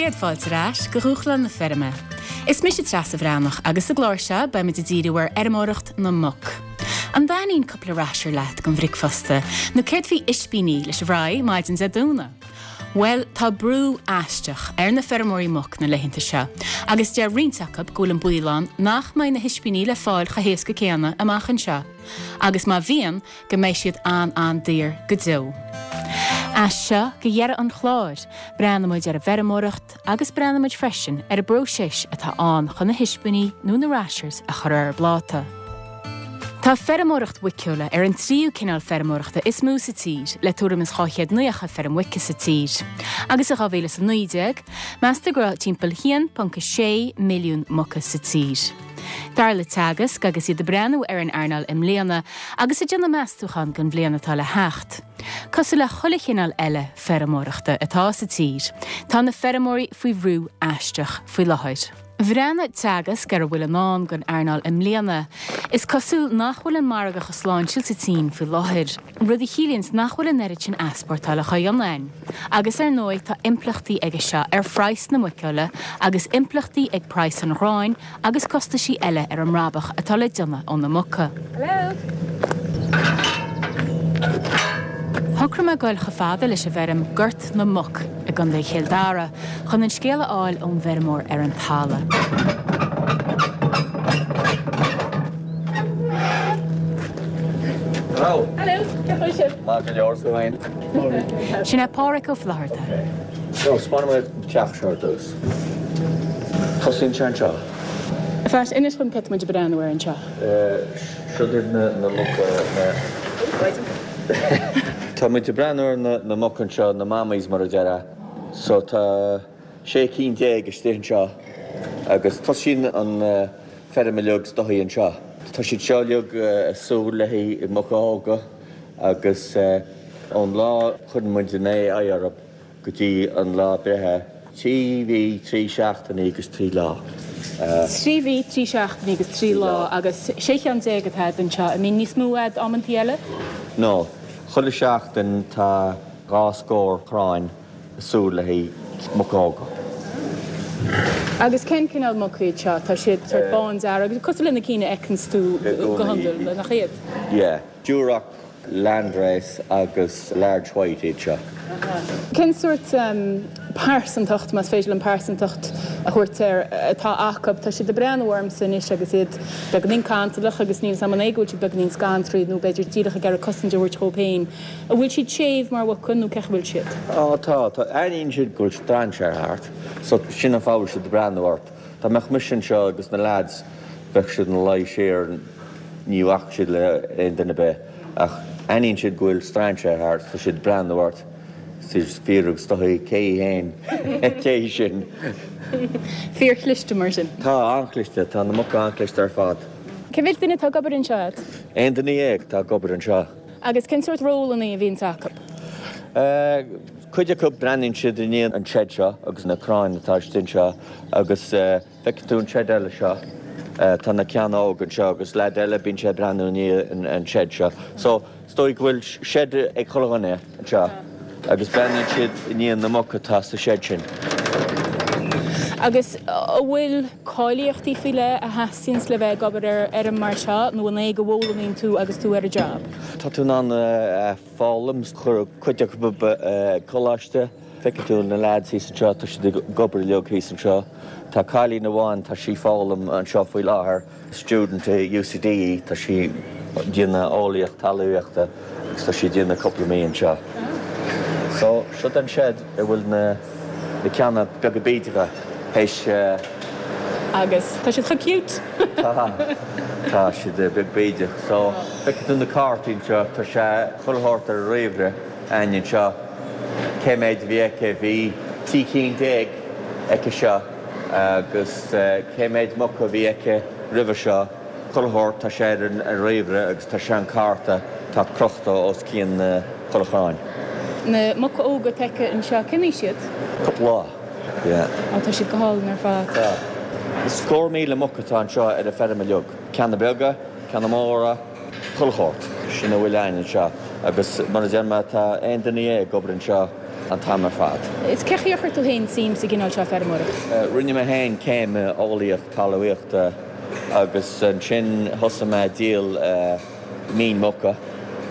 Céad fáilte ar ais go Dhúshlán na Feirme. Is mise Treasa Bhreathnach agus sa gclár seo beimid ag díriú ar fheirmeoireacht na muc. An dtaitníonn cúpla rasher leat don bhricfeasta nó céard faoi ispíní leis an bhfraigh maidin Dé Domhnaigh? Bhuel, tá brú aisteach ar na feirmeoirí muc na laethanta seo agus deir roinnt acu go bhfuil an baol ann nach mbeidh na hispíní le fáil chomh héasca céanna amach anseo agus má bhíonn, go mbeidh siad an-an-daor go deo. As seo go dheireadh an chláir, breathnóimid ar an bhfeirmeoireacht agus breathnóimid freisin ar an bpróiseas atá ann chun na hispíní nó na rashers a chur ar an bpláta. Tá feirmeoireacht mhuiceola ar an tríú cineál feirmeoireachta is mó sa tír, le tuairim is 290 feirm mhuice sa tír. Agus i 2019, meastar go raibh timpeall 1.6 milliún muca sa tír. Dar le Teagasc, agus iad ag breathnú ar an earnáil i mbliana agus ag déanamh meastúchán don bhliain atá le theacht, cosúil le chuile chineál eile feirmeoireachta atá sa tír, tá na feirmeoirí faoi bhrú aisteach faoi láthair. Bhreathnaigh Teagasc ar a bhfuil i ndán don earnáil i mbliana. Is cosúil nach bhfuil an margadh chomh sláintiúil sa tSín faoi láthair. rud a chiallaíonns nach bhfuil an oiread sin easpórtála á dhéanamh ann. Agus ar ndóigh tá impleachtaí aige seo ar phraghas na muiceola agus impleachtaí ag praghas an ghráin agus costaisí eile ar an mbrabach atá le déanamh ó na muca. Shocraigh mé goil chomh fada leis an bhfeirm Gort na Muc i gContae Chill Dara chun an scéal a fháil ón bhfeirmeoir ar an talamh. Hello. Hello, cén chaoi a bhfuil sibh? Maith go leor, tú féin? Sin é Páraic Ó Flatharta. So, 'spáinfidh mé an teach seo ar dtús. Tosaíonn sé anseo. Phat, inis dom céard tá muid ag breathnú air anseo. Seo iad na muca, na. Tá muid ag breathnú ar na muca anseo, na mammies mar a déarfá. So tá 16 cinn istigh anseo agus tosaíonn an feirm uilig is dóichí anseo. Tá siad seo uilig ag súil le haghaidh muca óga agus ón lá a chuireann muid an AI orthu go dtí an lá breithe, 3 mhí, 3 seachtainí agus 3 lá. 3 mhí, 3 seachtainí agus 3 lá agus 16 cheann atá agat anseo. An mbíonn níos mó agat amantaí eile? No. Chuile sheachtain tá dhá scór cráin ag súil le haghaidh muca óga. Agus cén cineál muca iad seo? Tá siad sort bándearg, cosúil le na cinn a fheiceanns tú go hiondúil, nach iad? Yeah. Duroc, Landrace agus Large White iad seo. Cén sórt pearsantacht, más féidir liom pearsantacht a thabhairt air, atá acu? Tá siad ag breathnú ormsa anois agus iad beagáinín cantalach agus níl 'fhios a'm an é go bhfuil siad beagáinín scantraithe nó b'fhéidir díreach ag iarraidh cosaint a thabhairt dhóibh féin. An bhfuil siad séimh mar mhuca nó cén chaoi a bhfuil siad? Á tá, tá. Aithníonn siad go bhfuil strainséir thart so sin an fáth a bhfuil siad ag breathnú ort. Dá mbeadh mise anseo agus na lads bheadh siad ina luí siar, ní bhacfadh siad le aon duine ar bith ach aithníonn siad go bhfuil strainséir thart so tá siad ag breathnú ort is iad ag fiafraí is dóichí cé hí fhéin, cé hí sin. Fíorchliste mar sin. Tá, an-chliste, tá na muca an-chliste ar fad. Cé mhéad duine atá ag obair anseo agat? Aon duine dhéag atá ag obair anseo. Agus cén sórt rólanna a bhíonns acu? Cuid acu breathnaíonn siad i ndiaidh an shed seo agus na cráin atá istigh anseo agus feiceann tú an shed eile seo, tá na ceanna óga anseo agus leaid eile bíonn sé ag breathnú i ndiaidh an shed seo. So is dóigh go bhfuil shed ag chuile dhuine anseo agus breathnaíonn siad i ndiaidh na muc atá sa shed sin. Agus an bhfuil cáilíochtaí faoi leith a theastaíonns le bheith ag obair ar fheirm mar seo nó an é go bhfoghlaimíonn tú agus tú ar an job? Tá tú in ann foghlaim, chuir cuid acu ag coláiste, feicfidh tú na lads thíos anseo, tá siad ag obair uilig thíos anseo. Tá cailín amháin, tá sí ag foghlaim anseo faoi láthair. Student i UCD í, tá sí ag déanamh eolaíocht talmhaíochta agus tá sí ag déanamh cúpla mí anseo. So, seo an shed a bhfuil na na ceanna beaga bídeacha théis. Agus tá siad chomh cute! Tá, tá siad beag bídeach. So, feicfidh tú na cártaí anseo, tá sé chuile shórt ar an ríomhaire againn anseo. Cé méid a bhí aici? Bhí 13 cinn aici seo. Agus cé méid muca a bhí aici roimhe seo? Chuile shórt, tá sé ar an ríomhaire agus tá sé an cárta atá crochta os cionn chuile chrann. Na muca óga atá aici anseo, cén aois iad? Cúpla lá, yeah. Á, tá siad go hálainn ar fad. Tá. Scór míle muc atá anseo ar an feirm uilig. Ceanna beaga, ceanna móra, chuile shórt. Sin a bhfuil againn anseo. Agus mar a deir mé, tá aon duine dhéag ag obair anseo. an t-am ar fad. Is cé chaoi ar chuir tú féin suim sa gcineál seo feirmeoireacht? Rinne mé féin céim i eolaíocht talmhaíochta agus ansin thosaigh mé ag díol mín muca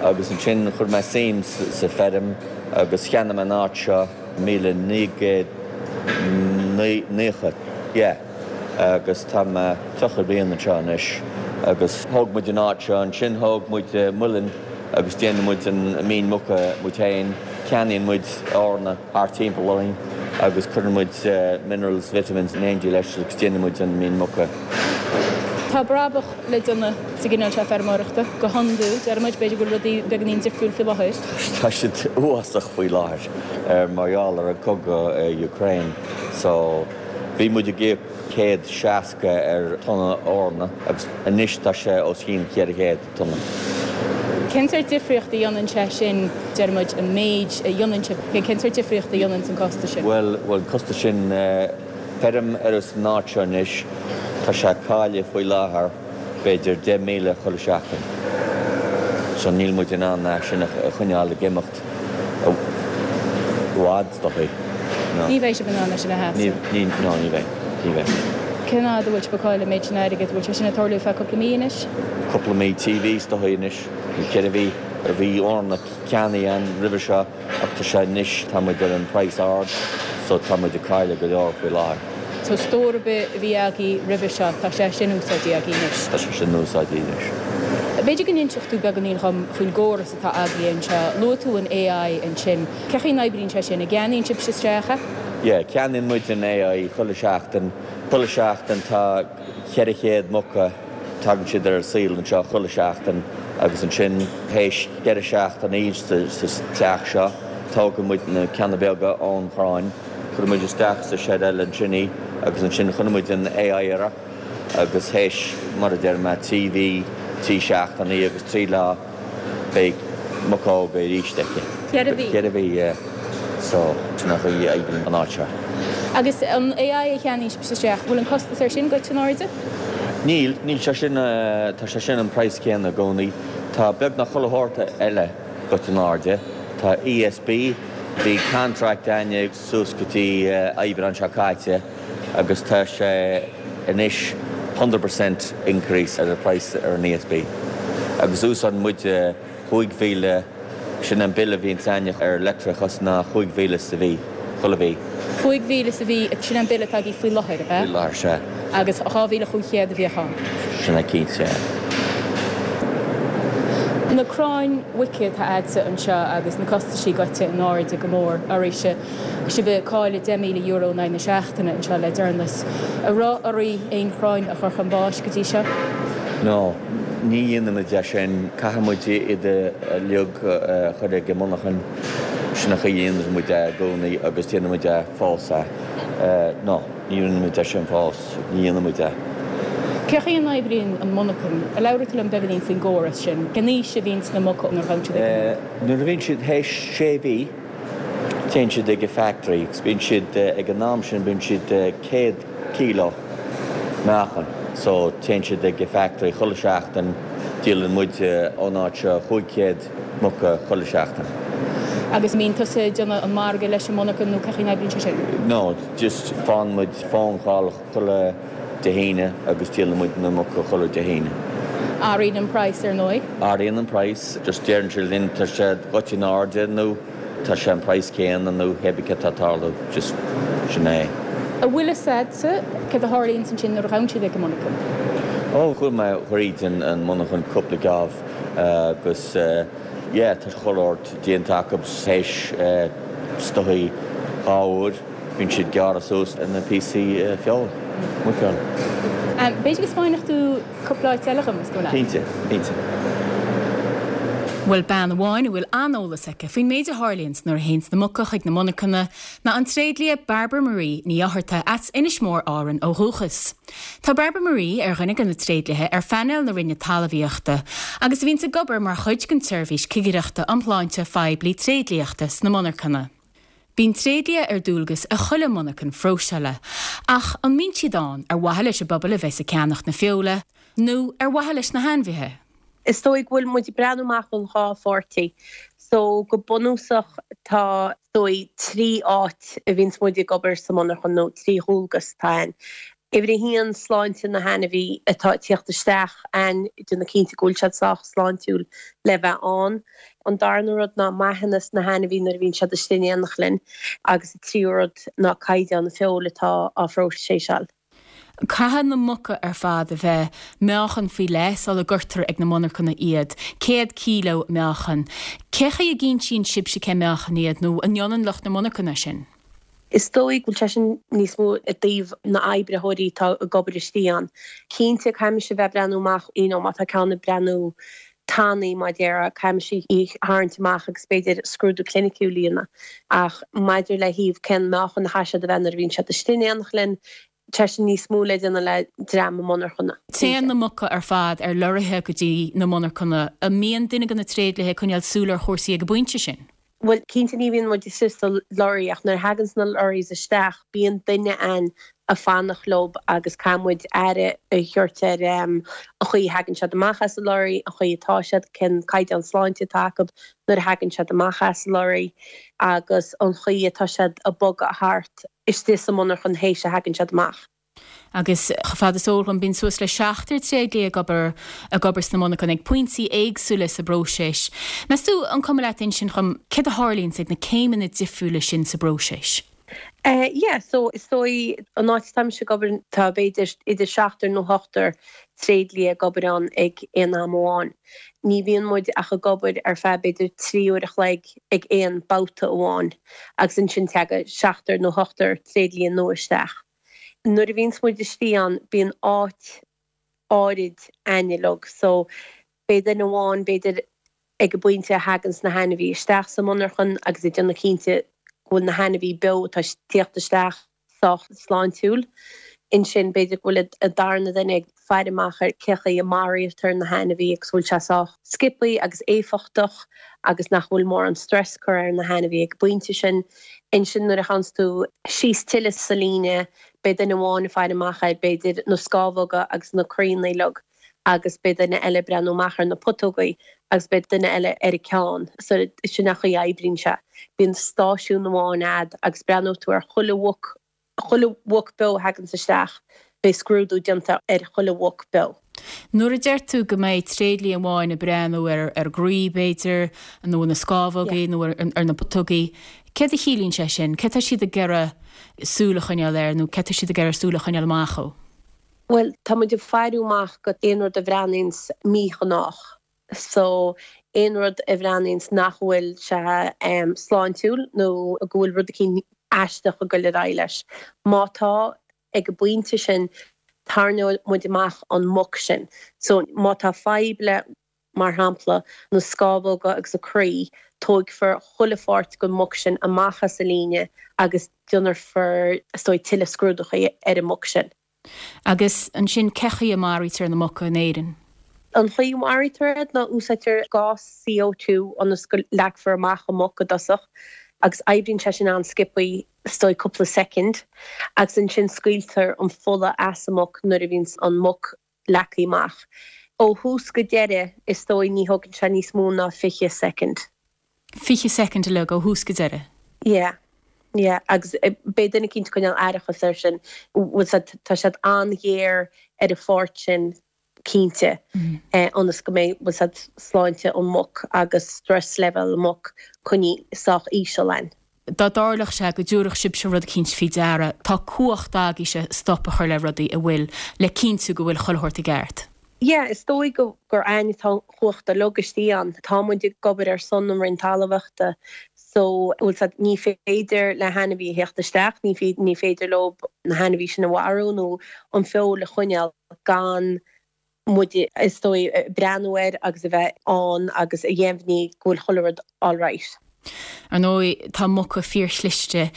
agus ansin chuir mé suim sa feirm agus cheannaigh mé an áit seo 1990, yeah, agus tá mé 30 bliain anseo anois agus thóg muid an áit seo, ansin thóg muid muileann agus déanann muid an mín muca muid féin, ceannaíonn muid eorna thart timpeall orainn agus cuireann muid minerals, vitamins in éindí leis agus déanann muid an mín muca. Tá brabach le déanamh sa gcineál seo feirmeoireachta, go hiondúil, deir muid, b'fhéidir go bhfuil rudaí beagáinín difriúil faoi láthair. Tá siad uafásach faoi láthair mar gheall ar an cogadh i Ukraine so bhí muid ag íoc 160 ar tonna eorna agus anois tá sé os cionn 400. tonna. Cén sórt difríocht a dhéanann sé sin, deir muid, an méid a dhéanann sé, cén sórt difríocht a dhéanann an costas sin? Bhuel, bhuel, an costas sin, feirm ar an áit seo anois, tá sé ag cailleadh faoi láthair b'fhéidir 10,000 chuile seachtain. So níl muid in ann é sin a choinneáil ag imeacht i bhfad, is dóichí. No. Ní bheidh sibh in ann é sin a sheasamh. Ní, ní, no, ní bheidh. Ní bheidh. Cén fhad a bhfuil sibh ag cailleadh an méid sin airgid? Bhfuil sé sin ag tarlú feadh cúpla mí anois? Cúpla mí, 3 mhí is dóichí anois, nó 4 mhí. Bhí eorna ceannaithe ann roimhe seo ach tá sé anois, tá muid ar an praghas ard so tá muid ag cailleadh go leor faoi láthair. So stór ar bith a bhí agaibh roimhe seo, tá sé sin úsáidte agaibh anois? Tá sé sin úsáidte anois. B'fhéidir go n-inseodh tú beagáinín dhom faoin gcóras atá agaibh anseo. Luaigh tú an AI ansin. Cé chaoi n-oibríonn sé sin? An gceannaíonn sibhse isteach é? Yeah, ceannaíonn muid an AI chuile sheachtain. Chuile sheachtain tá 400 muca, tagann siad ar an saol anseo chuile sheachtain agus ansin théis 4 seachtainí sa teach seo, tógann muid na ceanna beaga ón chrann, cuireann muid isteach sa shed eile ansin í agus ansin cuireann muid an AI uirthi agus théis, mar a deir mé, 3 mhí, 3 seachtainí agus 3 lá, Beidh muca óga arís aici. Ceithre mhí. Ceithre mhí, yeah. So, sin an chaoi a oibríonn an áit seo. Agus an AI a cheannaíonn sibhse isteach, bhfuil an costas air sin goite in airde? Níl, níl sé sin, tá sé sin an praghas céanna i gcónaí. Tá beagnach chuile shórt eile goite in airde. Tá ESB, bhí contract againne suas go dtí Aibreán seo caite agus tá sé anois 100% increase ar an price ar an ESB agus úsáideann muid 5,000, sin an bille a bhíonns againne ar leictreachas ná 5,000 sa mhí, chuile mhí. 5,000 sa mhí, sin an bille atá agaibh faoi láthair, ab ea? Faoi láthair, sea. Agus 2,500 a bhíodh ann. Sin é cinnte, yeah. Na crainn mhuice atá a'dsa anseo agus na costaisí goite in airde go mór oraibhse. Sibh ag cailleadh €10,000 in aghaidh na seachtaine anseo le deireanas. An raibh oraibh aon chrainn a chur chun báis go dtí seo? No, ní dhéanaimid é sin. Caithfidh muid iad uilig a chur ag an monarchan. Sin an chaoi a dhéanann muid é i gcónaí agus déanann muid é fós é. No, ní rinne muid é sin fós. Ní dhéanann muid é. Cé chaoi a n-oibríonn an monarchan? Labhair tú liom beagáinín faoin gcóras sin. Cén aois a bhíonns na muca nuair a ghabhann siad ag an monarchan? Nuair a bhíonn siad théis sé mhí, Téann siad ag an factory agus bíonn siad, ag an am sin bíonn siad 100 kilo meáchan so téann siad ag an factory chuile seachtain, díolann muid ón áit seo 500 muca chuile seachtain. Agus an mbíonn tusa ag déanamh an margadh leis an monarchan nó cé chaoi n-oibríonn sé sin? No, just faigheann muid phone call chuile Dé hAoine agus díolann muid na muca chuile Dé hAoine. Athraíonn an praghas ar ndóigh. Athraíonn an praghas, just deireann siad linn tá sé goite in airde nó tá sé an praghas céanna nó cébí céard atá ag tarlú, just sin é. An bhfuil fhios a'dsa céard a tharlaíonns ansin nuair a ghabhann siad ag an monarchan? Ó, chuaigh mé thríd an monarchan cúpla geábh agus yeah tá chuile shórt déanta acu théis is dóichí dhá uair. Bíonn siad gearrtha suas ina píosaí feoil, muicfheoil. B'fhéidir go 'spáinfeadh tú cúpla áit eile dhom, is cuma leat? Cinnte, cinnte. Bhuel, bean amháin a bhfuil an-eolas aici faoin méid a tharlaíonns nuair a théanns na muca chuig na monarchana ná an tréidlia Barbara Marie Ní Fhátharta as Inis Mór Árann ó dhúchas. Tá Barbara Marie ar dhuine de na tréidliatha ar phainéal na Roinne Talmhaíochta agus a bhíonns ag obair mar chuid den tseirbhís cigireachta um shláinte phoiblí tréidliachta sna monarchana. Bíonn tréidlia ar dualgas i chuile monarchan phróiseála, ach an mbíonn siad ann ar mhaithe leis an bpobal a bheas ag ceannacht na feola, nó ar mhaithe leis na hainmhithe? Is dóigh go bhfuil muid ag breathnú amach ón dhá pháirtí. So go bunúsach tá is dóigh 3 áit a bhíonns muid ag obair sa monarchan nó 3 dhualgas atá ann. Uimhir a haon, sláinte na hainmhí atá ag tíocht isteach ann, déanamh cinnte go bhfuil siad sách sláintiúil le bheith ann. An darna rud ná maitheanas na hainmhí nuair a bhíonn siad istigh in éineacht linn agus an tríú rud ná caighdeán na feoil atá á phróiseáil. Caithfidh na muca ar fad a bheith meáchan faoi leith sula gcuirtear ag na monarchana iad, 100 kíló meáchan. Cé chaoi a gcinntíonn sibhse cén meáchan iad nó an ndéanann lucht na monarchana sin? Is dóigh go bhfuil sé sin níos mó i dtaobh na oibritheoirí atá ag obair istigh ann. Cinnte, caithfimis a bheith ag breathnú amach, you know, má tá ceann ag breathnú tanaí, mar a déarfá, caithfimis í a tharraingt amach agus b'fhéidir scrúdú cliniciúil a dhéanamh. Ach maidir le thaobh cén meáchan a chaithfidh siad a bheith nuair a bhíonn siad istigh in éineacht linn, tá sin níos mó le déanamh le dream na monarchana. Téann na muca ar fad ar lorraithe go dtí na monarchana. An mbíonn duine de na tréidliatha ag coinneáil súil ar chúrsaí ag an bpointe sin? Bhuel, cinnte ní bhíonn muid istigh sa lorry ach nuair a thaganns na lorries isteach bíonn duine ann a' fanacht leob agus caithfidh muid aire a thabhairt ar an chaoi a thagann siad amach as an lorry, an chaoi atá siad, cén caighdeán sláinte atá acu nuair a thagann siad amach as an lorry agus an chaoi atá siad a' bogadh thart istigh sa monarchan théis a thagann siad amach. Agus chomh fada is eol dhom, bíonn suas le seachtar tréidlia ag obair ag obair sna monarchana ag pointí éagsúla sa bpróiseas. Meas tú an cuma leat insint dhom céard a tharlaíonns ag na céimeanna difriúla sin sa bpróiseas? Eh yeah, so is dóigh an áit atá mise ag obair tá b'fhéidir idir seachtar nó ochtar tréidlia ag obair ann ag aon am amháin. Ní bhíonn muid ach ag obair ar feadh b'fhéidir 3 uair a chloig ag aon babhta amháin agus ansin teagann seachtar nó ochtar tréidlia nua isteach. Nuair a bhíonns muid istigh ann bíonn áit áirid a'inn uilig so beidh duine amháin b'fhéidir ag an bpointe a thaganns na hainmhí isteach sa monarchan agus ag déanamh cinnte go bhfuil na hainmhí beo atá ag tíocht isteach sách sláintiúil. Ansin b'fhéidir go bhfuil an darna duine ag faire amach ar cé chaoi a maraítear na hainmhí agus bhfuil sé sách sciobthaí agus éifeachtach agus nach bhfuil mórán stress curtha ar na hainmhí ag an bpointe sin. Ansin nuair a théanns tú síos tuilleadh sa líne beidh duine amháin ag faire amach ar b'fhéidir na scámhóga agus na croíanna uilig agus beidh duine eile ag breathnú amach ar na putógaí agus beidh duine eile ar an ceann. So sin an chaoi a oibríonn sé. Bíonn stáisiún amháin a'd agus breathnóidh tú ar chuile mhuc Chuile mhuc beo a thaganns isteach, beidh scrúdú déanta ar chuile mhuc beo. Nuair a deir tú go mbeidh tréidlia amháin ag breathnú ar an gcroí, b'fhéidir, nó ar na scámhógaí nó ar na putógaí, céard a chiallaíonn sé sin? Céard tá siad ag iarraidh súil a choinneáil air nó céard tá siad ag iarraidh súil a choinneáil amach ó? Bhuel, tá muid ag faire amach go aon rud a bhreathnaíonns míghnách. So, aon rud a bhreathnaíonns nach bhfuil sé sláintiúil nó go bhfuil rud eicínt aisteach ag goil ar aghaidh leis. Má tá, ag an bpointe sin, tarraingeoidh muid amach an muc sin. So, má tá fadhb le, mar shampla, na scámhóga agus an croí, tóigfear chuile pháirt den mhuc sin amach as an líne agus déanfar, is dóigh, tuilleadh scrúdachaí ar an muc sin. Agus ansin, cé chaoi a maraítear na muca in Éirinn? An chaoi a maraítear iad ná úsáidtear gás CO2 ionas go leagfar amach an muc i dtosach agus oibríonn sé sin an-sciobthaí, is dóigh cúpla soicind, agus ansin scaoiltear an fola as an muc nuair a bhíonns an muc leagtha amach. Ó thús go deireadh, is dóigh ní thógann sé níos mó ná 20 soicind. 20 soicind uilig ó thús go deireadh? Yeah. Yeah. Agus beidh duine eicínt ag coinneáil aireachas air sin. Bhfuil siad, tá siad an-ghéar ar an pháirt sin cinnte, ionas go mbeidh, bhfuil siad, sláinte an mhuc agus stress level an mhuc coinnithe sách íseal ann. Dá dtarlódh sé go dtabharfadh sibhse rud eicínt faoi deara, tá cumhacht agaibhse stop a chur le rudaí a bhfuil le cinntiú go bhfuil chuile shórt i gceart. Yeah, is dóigh go gur a'ainn atá an chumhacht uilig istigh ann. Tá muid ag obair ar son an Roinn Talmhaíochta so, bhfuil 's a'd, ní féidir le hainmhí a theacht isteach, ní ní féidir leo na hainmhí sin a mharú nó an feoil a choinneáil gan muid, is dóigh, breathnú air agus a bheith ann agus a dheimhniú go bhfuil chuile rud alright. Ar ndóigh, tá muca fíorchliste.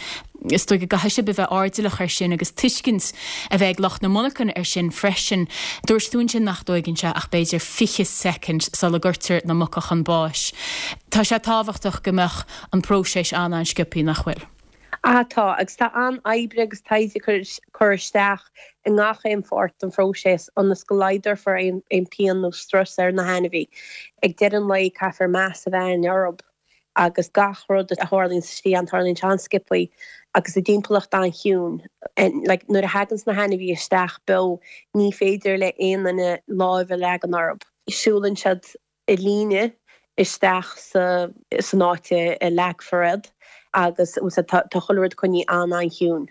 Is dóigh go gcaithfidh sibh a bheith airdeallach air sin agus tuiscint a bheith ag lucht na monarchan air sin freisin. Dúirt tú ansin nach dtóigeann sé ach b'fhéidir 20 soicind sula gcuirtear na muca chun báis. Tá sé tábhachtach go mbeadh an próiseas an-an-sciobthaí, nach bhfuil? Ah tá, agus tá an-oibre agus taighde curtha isteach i ngach aon pháirt den phróiseas ionas go laghdófar aon pian nó strus ar na hainmhí. Ag deireadh an lae caithfear meas a bheith againn orthu. Agus gach rud a tharlaíonns istigh ann, tarlaíonn sé an-sciobthaí agus i dtimpeallacht an-chiúin. Like, nuair a thaganns na hainmhithe isteach beo, ní féidir le aon duine láimh a leagan orthu. Siúlann siad i líne isteach sa san áit a leagfar iad agus tá chuile rud coinnithe an-an-chiúin.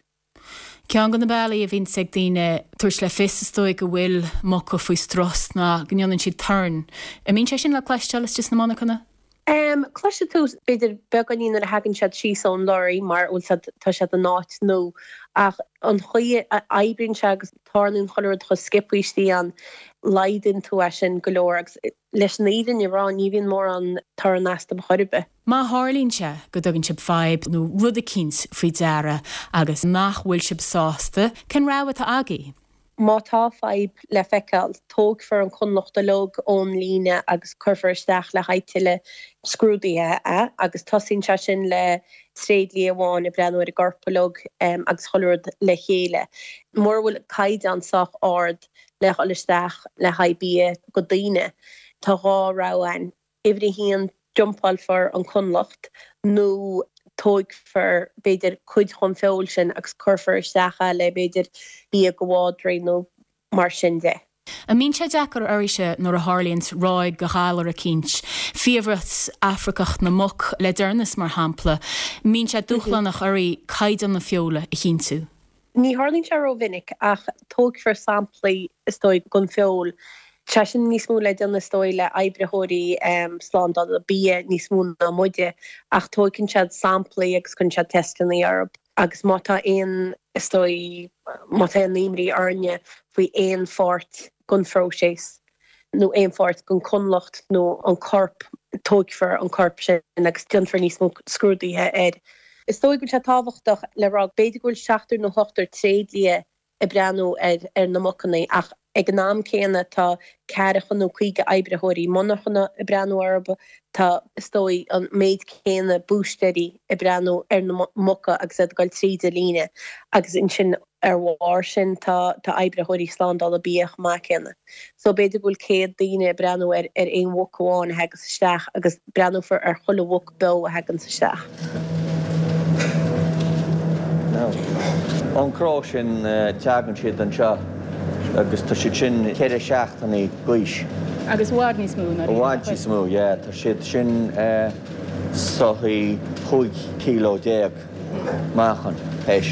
Ceann de na bealaí a bhíonns ag daoine tabhairt le fios is dóigh go bhfuil muca faoi strus ná go ndéanann siad torann. An mbíonn sé sin le cloisteáil istigh sna monarchana? Cloisfidh tú b'fhéidir beagáinín nuair a thagann siad síos ón lorry mar bhfuil siad tá siad in áit nua ach an chaoi a oibríonn sé agus tarlaíonn chuile rud chomh sciobthaí istigh ann laghdaíonn tú é sin go leor agus leis an fhírinne a rá ní bhíonn mórán torann astu chor ar bith. Má tharlaíonn sé go dtugann sibh fadhb nó rud eicínt faoi deara agus nach bhfuil sibh sásta, cén rogha atá agaibh? Má tá fadhb le feiceáil, tógfar an conlacht uilig ón líne agus cuirfear isteach le haghaidh tuilleadh scrúdaithe é agus tosaíonn sé sin le tréidlia amháin ag breathnú ar an gcorp uilig agus chuile rud le chéile. Mura bhfuil caighdeán sách ard le dhul isteach le haghaidh bia go daoine, tá dhá rogha ann. Uimhir a haon, dumpálfar an conlacht nó tógfar, b'fhéidir, cuid den feoil sin agus cuirfear isteach é le, b'fhéidir, bia go mhadraí nó mar sin de. An mbíonn sé deacair oraibhse nuair a tharlaíonns ráig de ghalar eicínt, fiabhras Afracach na muc le deireanas mar shampla, mbíonn sé dúshlánach oraibh caighdeán na feola a chinntiú? Ní tharlaíonn sé rómhinic ach tógfar samplaí is dóigh den feoil. Tá sé sin níos mó le déanamh is dóigh le oibritheoirí slándála bia níos mó ná muide ach tóigeann siad samplaí agus cuireann siad teisteanna orthu agus má tá aon, is dóigh, má tá aon imní orainne faoi aon pháirt den phróiseas nó aon pháirt den chonlacht nó an corp, tóigfear an corp sin agus déanfar níos mó scrúdaithe air. Is dóigh go bhfuil sé tábhachtach le rá, b'fhéidir go bhfuil seachtar nó ochtar tréidlia ag breathnú ar ar na mucanna ach ag an am céanna tá ceathracha nó 50 oibritheoirí monarchana ag breathnú orthu, tá, is dóigh, an méid céanna búistéirí ag breathnú ar na muca agus iad ag dul tríd an líne agus ansin Ar bharr sin tá tá oibritheoirí slándála bia chomh maith céanna. So b'fhéidir go bhfuil 100 daoine ag breathnú ar ar aon mhuc amháin a thagas isteach agus breathnófar ar chuile mhuc beo a thaganns isteach. Now, ón cró sin teagann siad anseo agus tá siad sin ceithre seachtainí d'aois. Agus i bhfad níos mó ná I bhfad níos mó, yeah. Tá siad sin soithí 15 kilo. Meáchan, théis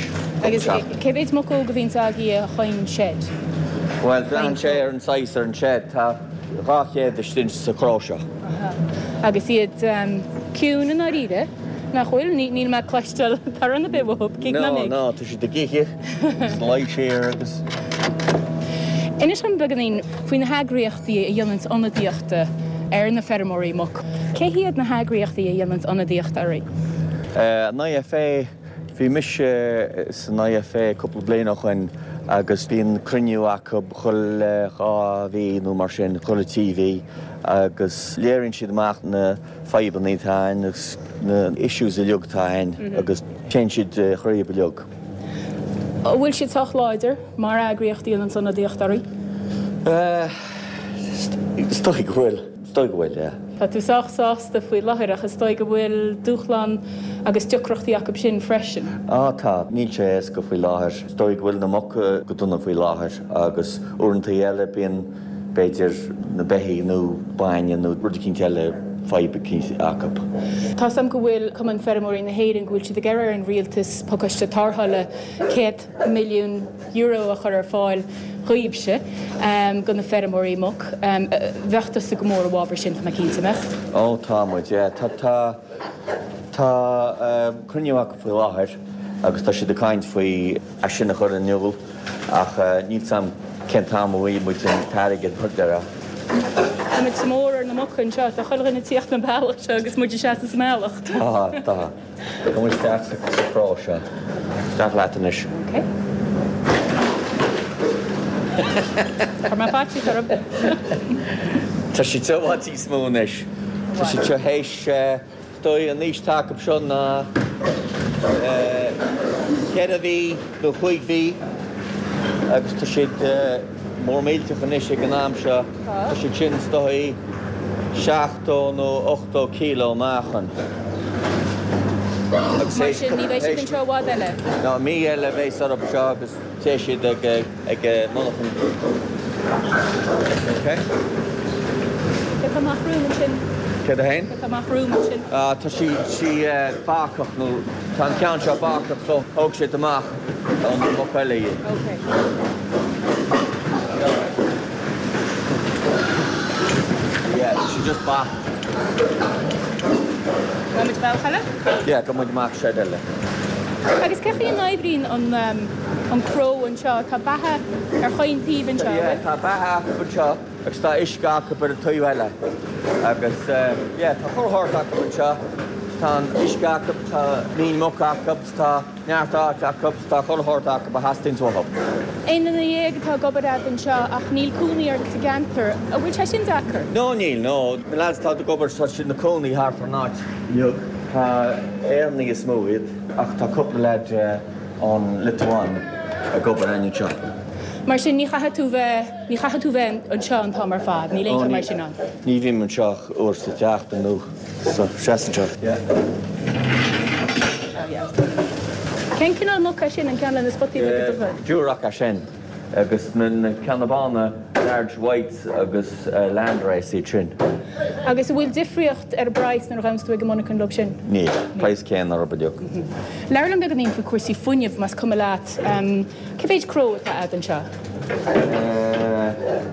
Agus cé mhéid muc óg a bhíonns agaibh chaon shed? Bhuel, braitheann sé ar an saghas ar an shed. Tá 200 istigh sa chró seo. Aha. Agus iad ciúin i ndáiríre, nach bhfuil? Níl mé ag cloisteáil torann ar bith uathu, gidh ná mig. No, no, tá siad ag ithe, agus luí siar agus. Inis dom beagáinín faoi na heagraíochtaí a dhéananns ionadaíocht ar na feirmeoirí muc. Cé hiad na heagraíochtaí a dhéananns ionadaíocht oraibh? An IFA, Bhí mise san IFA cúpla bliain ó shoin agus bíonn cruinniú acu chuile dhá mhí nó mar sin, chuile trí mhí agus léiríonn siad amach na fadhbanna atá ann agus na issues uilig atá ann agus téann siad thríob uilig. An bhfuil siad sách láidir mar eagraíocht a dhéananns ionadaíocht oraibh? Is dóigh go bhfuil. Is dóigh go bhfuil, yeah. Tá tú sách sásta faoi láthair ach is dóigh go bhfuil dúshlán agus deacrachtaí acu sin freisin. Á tá, níl sé éasca faoi láthair. Is dóigh go bhfuil na muca go dona faoi láthair agus uaireanta eile bíonn b'fhéidir na beithígh nó bainne nó rud eicínt eile fadhb eicínt acu. Tá 's a'm go bhfuil Cumann Feirmeoirí na hÉireann go bhfuil siad ag iarraidh ar an rialtas pacáiste tarrthála €100 milliún a chur ar fáil dhaoibhse, do na feirmeoirí muc. Bheadh tusa go mór i bhfabhar sin, tá mé cinnte, an mbeadh? Ó tá muid, yeah. Tá, tá, tá cruinniú acu faoi láthair agus tá siad ag caint faoi é sin a chur in iúl ach níl 's a'm cén t-am a bhfaighidh muid an t-airgead mar déarfá. Tá muid sa mór ar na muca anseo, tá chuile dhuine ag tíocht an bealach seo agus muid ag seasamh sa mbealach. Tá, tá. Gabh isteach sa chró seo. Isteach leat anois. Ok. Chuir mé faitíos orthu. Tá siad seo i bhfad níos mó anois. Tá siad seo théis, is dóigh an aois atá acu seo ná ceithre mhí nó chúig mhí agus tá siad mór millteach anois ag an am seo. Tá siad sin is dóigh 70 nó 80 kilo meáchan. Mar sin, ní bheidh siad anseo i bhfad eile? No, mí eile a bheas orthu anseo agus téigh siad ag ag monarchan. Ok. Céard atá amach romham ansin? Céard a fhéin? Céard atá amach romham ansin? Ah, tá sí sí bacach nó tá an ceann seo bacach so thóg siad amach ón muc eile í. Ok. Yeah, tá sí just bacach. Gabhfaidh muid bealach eile? Yeah, gabhfaidh muid amach side eile. Agus cé chaoi a n-oibríonn an an cró anseo? Tá beatha ar chaon taobh anseo, an bhfuil? Yeah, tá beatha acu anseo agus tá uisce acu ar an taobh eile. Agus yeah, tá chuile shórt acu anseo. Tá an uisce acu, tá líon muc acu, tá. Neart áit acu, tá chuile shórt acu a theastaíonns uathu. Aon duine dhéag atá ag obair a'd anseo ach níl cónaí ort sa gceantar. An bhfuil sé sin deacair? No níl, no. Na lads atá ag obair tá siad ina cónaí thart ar an áit uilig. Tá Éireannaigh is mó iad ach tá cúpla leaid ón Liotuáin ag obair againn anseo. Mar sin ní chaithfidh tú bheith, ní chaithfidh tú bheith anseo an t-am ar fad, níl aon cheo mar sin ann? Ní bhím anseo ach uair sa tseachtain nó. So, seas anseo. Yeah. Oh yeah. Cén cineál muc é sin, an ceann le na spotaí beaga dubha? Duroc é sin. Agus na ceanna bána, large whites agus landrace iad sin. Agus an bhfuil difríocht ar an bpraghas nuair a ghabhanns tú ag an monarchan leo sin? Níl. Praghas céanna orthu uilig. Labhair liom beagáinín faoi cúrsaí fuinnimh, más cuma leat. Cé mhéid cró atá a'd anseo?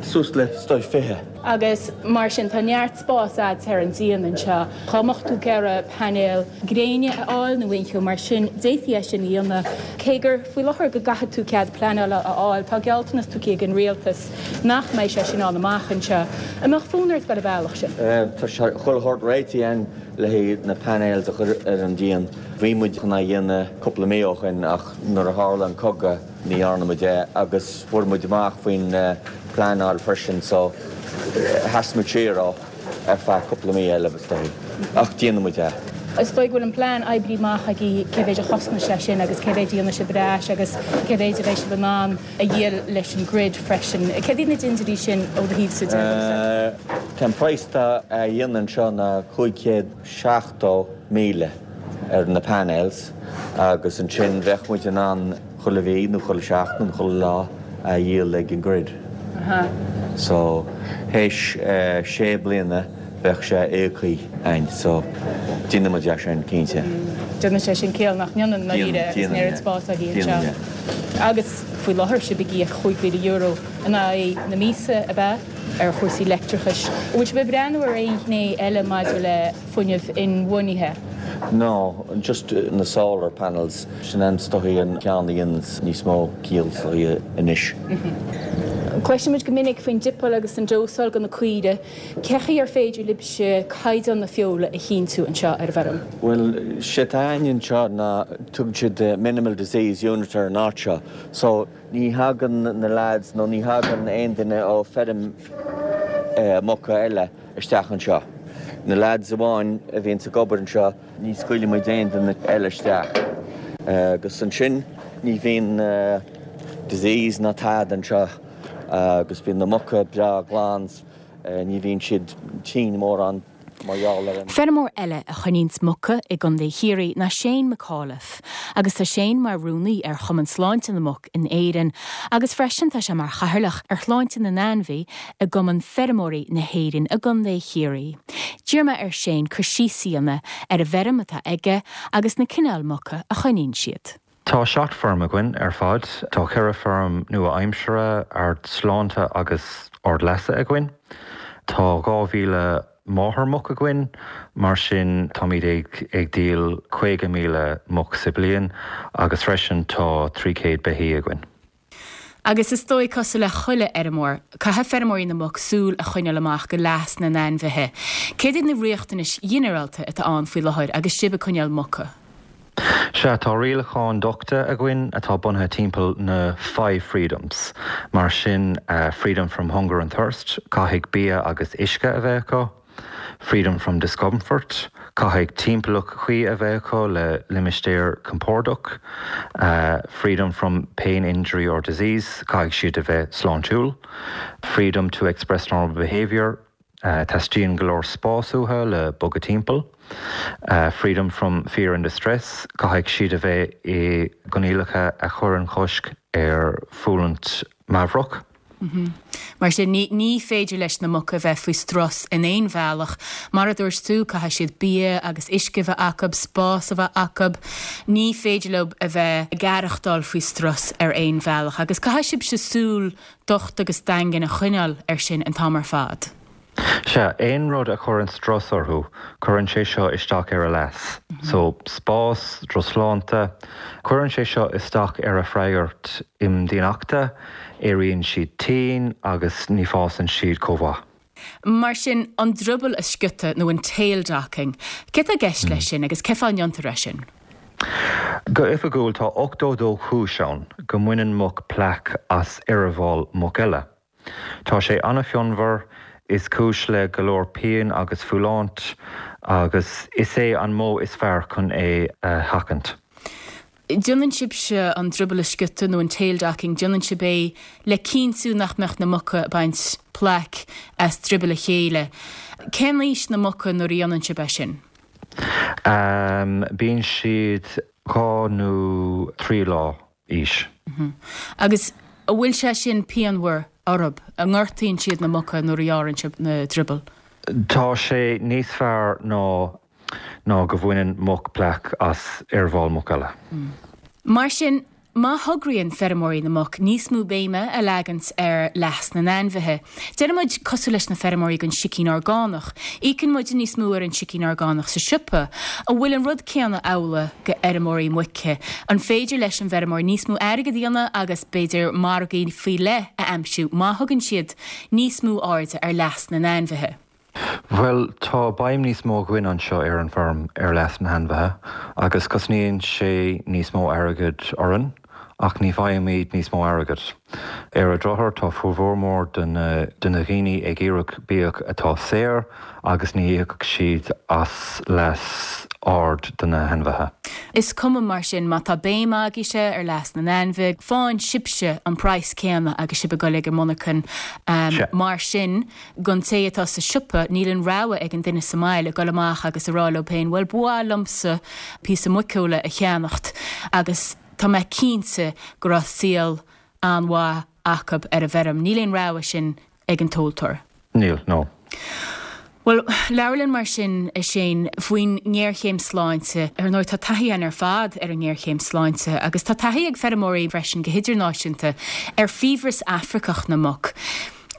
Suas le, is dóigh, 20. Agus mar sin tá neart spás a'd ar an díon anseo. Dá mbeadh tú ag iarraidh painéil gréine a fháil nó aon cheo mar sin, d'fhéadfaí é sin a dhéanamh. Cé gur faoi láthair go gcaithfidh tú cead pleanála a fháil, tá gealltanas tugtha ag an rialtas nach mbeidh sé sin ann amach anseo. An mbeadh fonn ort dul an bealach sin? Tá sé chuile shórt réitithe againn le haghaidh na panels a chur ar an díon. Bhí muid chun é a dhéanamh cúpla mí ó shin ach nuair a tharla an cogadh, Ní dhearna muid é agus fuair muid amach faoin pleanáil freisin so sheas muid siar ó ar feadh cúpla mí eile is dóigh. Ach déanfaidh muid é. Is dóigh go bhfuil an plean oibrithe amach agaibh cé mhéid a chosnós sé sin agus cé mhéid a dhéanfaidh sibh ar ais agus cé mhéid a bheidh sibh in ann a dhíol leis an grid freisin. Céard iad na dintiúirí sin ó do thaobhsa de? Tá an praghas atá á dhéanamh anseo ná 570,000 ar na panels agus ansin bheadh muid in ann chuile mhí nó chuile sheachtain nó chuile lá a dhíol ag an grid. So théis sé bliana bheadh sé íoctha againn so déanfaidh muid é sin cinnte. Déanann sé sin ciall nach ndéanann i ndáiríre agus an oiread spáis agaibh anseo. Agus faoi láthair sibh ag íoc €5,000 in aghaidh na míosa ab ea ar chúrsaí leictreachais. An bhfuil sibh ag breathnú ar aon ghné eile maidir le fuinneamh inbhuanaithe? No, just na solar panels, sin an is dóigh an ceann a dhéananns níos mó ciall is dóigh anois. Cloisimid go minic faoin dipeáil agus an dósáil do na caoirigh. Cé chaoi ar féidir libhse caighdeán na feola a chinntiú anseo ar an bhfeirm? Bhuel, sé atá againn anseo ná tugann siad minimal disease unit ar an áit seo. So ní thagann na lads nó ní thagann aon duine ó feirm muca eile isteach anseo. Na lads amháin a bhíonns ag obair anseo, ní scaoileann muid aon duine eile isteach. Agus ansin ní bhíonn disease ná tada anseo agus bíonn na muca breá glan, ní bhíonn siad tinn mórán mar gheall ar an. Feirmeoir eile a choinníonns muca i gContae Chiarraí ná Shane McAuliffe agus tá Shane mar rúnaí ar Chumann Sláinte na Muc in Éirinn agus freisin tá sé mar chathaoirleach ar Shláinte na nAinmhí i gCumann Feirmeoirí na hÉireann i gContae Chiarraí. D'iarr mé ar Shane cur síos a dhéanamh ar an bhfeirm atá aige agus na cineáil muca a choinníonn siad. Tá 7 feirm againn ar fad. Tá 4 feirm nua-aimseartha, ard-sláinte agus ard-leasa againn. Tá 2,000 máthair-muc againn, mar sin táimid ag díol 50,000 muc sa bliain agus freisin tá 300 beithí againn. Agus is dóigh, cosúil le chuile fheirmeoir, caithfidh feirmeoirí na muc súil a choinneáil amach go leas na n-ainmhithe. Céard iad na riachtanais ghinearálta atá ann faoi láthair agus sibh ag coinneáil muca? Sea, tá rialacháin dochta againn atá bunaithe timpeall na Five Freedoms. Mar sin, Freedom from Hunger and Thirst, caithfidh bia agus uisce a bheith acu. Freedom from Discomfort, caithfidh timpeallacht chuí a bheith acu le limistéar compordach. Freedom from Pain, Injury or Disease, caithfidh siad a bheith sláintiúil. Freedom to Express Normal Behaviour. Teastaíonn go leor spás uathu le bogadh timpeall. Freedom from fear and distress, caithfidh siad a bheith i gcoinníollacha a chuireann cosc ar fhulaingt meabhrach. Mar sin, ní féidir leis na muca a bheith faoi strus in aon bhealach. Mar a dúirt tú, caithfidh siad bia agus uisce a bheith acu, spás a bheith acu. Ní féidir leo a bheith ag aireachtáil faoi strus ar aon bhealach. Agus caithfidh sibhse súil docht agus daingean a choinneáil air sin an t-am ar fad. Sea, aon rud a chuireann strus orthu, cuireann sé seo isteach ar a leas. So, spás, drochshláinte, cuireann sé seo isteach ar a freagairt imdhíonachta, éiríonn siad tinn agus ní fásann siad chomh mhaith. Mar sin, an drioball a sciútadh nó an tail docking, céard tá i gceist leis sin agus cén fáth a ndéantar é sin? Go oifigiúil tá 82 chúis ann go mbaineann muc plaic as eireaball muc eile. Tá sé an-phionmhar, is cúis le go leor pian agus fulaingt agus is é an modh is fearr chun é a sheachaint. Déanann sibhse an drioball a sciútadh nó an tail docking, déanann sibh é le cinntiú nach mbeadh na muca ag baint plaic as drioball a chéile. Cén aois na muca nuair a dhéanann sibh é sin? Bíonn siad 2 nó 3 lá aois. Agus an bhfuil sé sin pianmhar orthu? An ngortaíonn siad na muca nuair a ghearrann sibh na driobaill? Tá sé níos fearr ná ná go bhaineann muc plaic as eireaball muc eile. Mar sin, má thograíonn feirmeoirí na muc níos mó béime a leagant ar leas na n-ainmhithe, déarfaidh muid cosúil leis na feirmeoirí den sicín orgánach, íocann muide níos mó ar an sicín orgánach sa siopa, an bhfuil an rud céanna amhlaidh go fheirmeoirí muice? An féidir leis an bhfeirmeoir níos mó airgid a dhéanamh agus b'fhéidir margaí faoi leith a aimsiú má thugann siad níos mó airde ar leas na n-ainmhithe? Bhuel, tá béim níos mó againn anseo ar an bhfeirm ar leas na hainmhithe agus cosnaíonn sé níos mó airgid orainn ach ní bhfaighimid níos mó airgid. Ar an drochuair tá formhór mór de na daoine ag iarraidh biadh atá saor agus ní íocfaidh siad as leas ard do na hainmhithe. Is cuma mar sin má tá béim agaibhse ar leas na n-ainmhithe, faigheann sibhse an praghas céanna agus sibh ag dul ag an monarchan mar sin. Don té atá sa siopa, níl an rogha ag an duine sa mbaile dul amach agus a rá leo féin, bhuel, ba mhaith liomsa píosa muiceola a cheannacht agus tá mé cinnte go raibh saol an-mhaith acu ar an bhfeirm. Níl aon rogha sin ag an tomhaltóir. Níl, no. Bhuel, labhair linn mar sin, a Shane, faoin ngéarchéim sláinte. Ar ndóigh, tá taithí againn ar fad ar an ngéarchéim sláinte agus tá taithí ag feirmeoirí freisin go hidirnáisiúnta ar fiabhras Afracach na muc.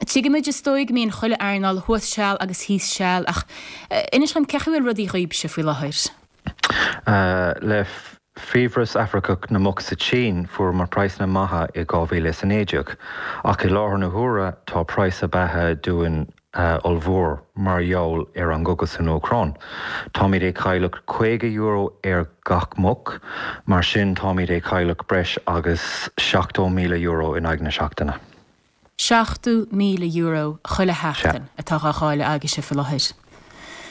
Tuigimid, is dóigh, go mbíonn chuile earnáil thuas seal agus thíos seal ach inis dhom cén chaoi a bhfuil rudaí dhaoibhse faoi láthair? Le fiabhras Afracach na muc sa tSín, fuaireamar praghsanna maithe i 2019, ach i láthair na huaire tá praghas beatha dúinn ollmhór mar gheall ar an gcogadh san Úcráin. Táimid ag cailleadh €50 ar gach muc, mar sin táimid ag cailleadh breis agus €70,000 in aghaidh na seachtaine. €70,000 chuile sheachtain atá dhá chailleadh agaibhse faoi láthair.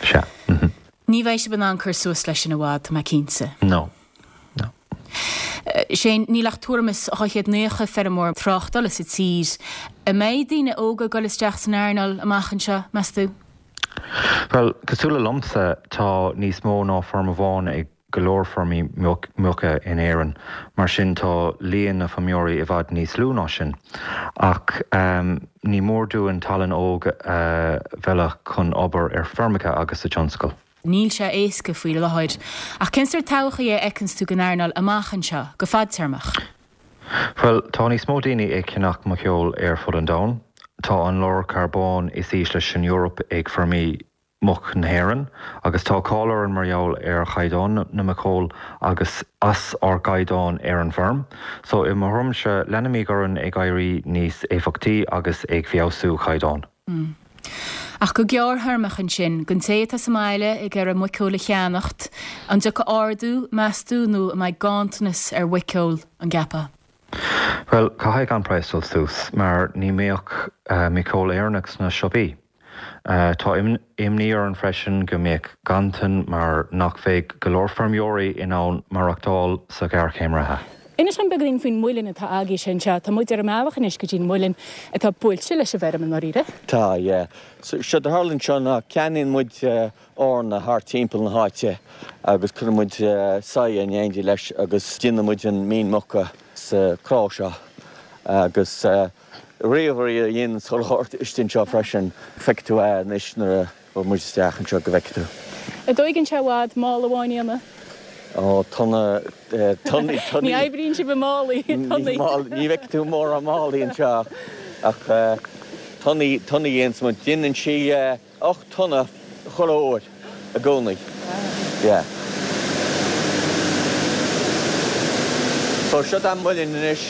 Sea. Ní bheidh sibh in ann cur suas leis sin i bhfad, tá mé cinnte. No. No. Shane, níl ach tuairim is 290 feirmeoir tráchtála sa tír. An mbeidh daoine óga ag dul isteach san earnáil amach anseo, meas tú? Bhuel, cosúil le liomsa, tá níos mó ná feirm amháin ag go leor feirmí muice in Éirinn, mar sin tá líon na feirmeoirí i bhfad níos lú ná sin. Ach ní mór dúinn tallann óg a mhealladh chun obair ar feirmeacha agus sa tionscal. Níl sé éasca faoi láthair. Ach cén sórt todhchaí a fheiceanns tú don earnáil amach anseo, go fadtéarmach? Bhuel, tá níos mó daoine ag ceannach muiceoil ar fud an domhain. Tá an lorg carbóin is ísle san Eoraip ag feirmí muc na hÉireann, agus tá cáil orainn mar gheall ar chaighdeán na muiceoil agus as ár gcaighdeán ar an bhfeirm. So, i mo thuairimse, leanfaimid orainn ag éirí níos éifeachtaí agus ag feabhsú caighdeán. Ach go gearrthéarmach ansin, don té atá sa mbaile ag iarraidh muiceoil a cheannacht, an dtiocfaidh ardú, meas tú, nó an mbeidh ganntanas ar mhuiceoil, an gceapfá? Bhuel, caithfidh an praghas dul suas, mar ní mbeadh muiceoil Éireannach sna siopaí. Tá imní orainn freisin go mbeadh ganntan mar nach bheidh go leor feirmeoirí in ann maireachtáil sa ghéarchéim reatha. Inis dom beagáinín faoin muileann atá agaibhse anseo. Tá muid ar an mbealach anois go dtí an muileann atá buailte leis an bhfeirm i ndáiríre. Tá, yeah. So, séard a tharlaíonn anseo ná ceannaíonn muid eorna thart timpeall na háite agus cuireann muid soya in éindí leis agus déanann muid an mhín muca sa chró seo agus ríomhairí a dhéanann chuile shórt istigh anseo freisin. Feicfidh tú é anois nuair a Ghabhfaidh muid isteach anseo go bhfeicfidh tú. An dtóigeann sé i bhfad mála amháin a dhéanamh? Ó, tonna, tonnaí, tonnaí. Ní oibríonn sibh i málaí, tonnaí. Ní bhfeicfidh tú mórán málaí anseo ach tonnaí, tonnaí a dhéananns muid. Déanann sí 8 tonna chuile uair i gcónaí. Yeah. So seo an muileann anois.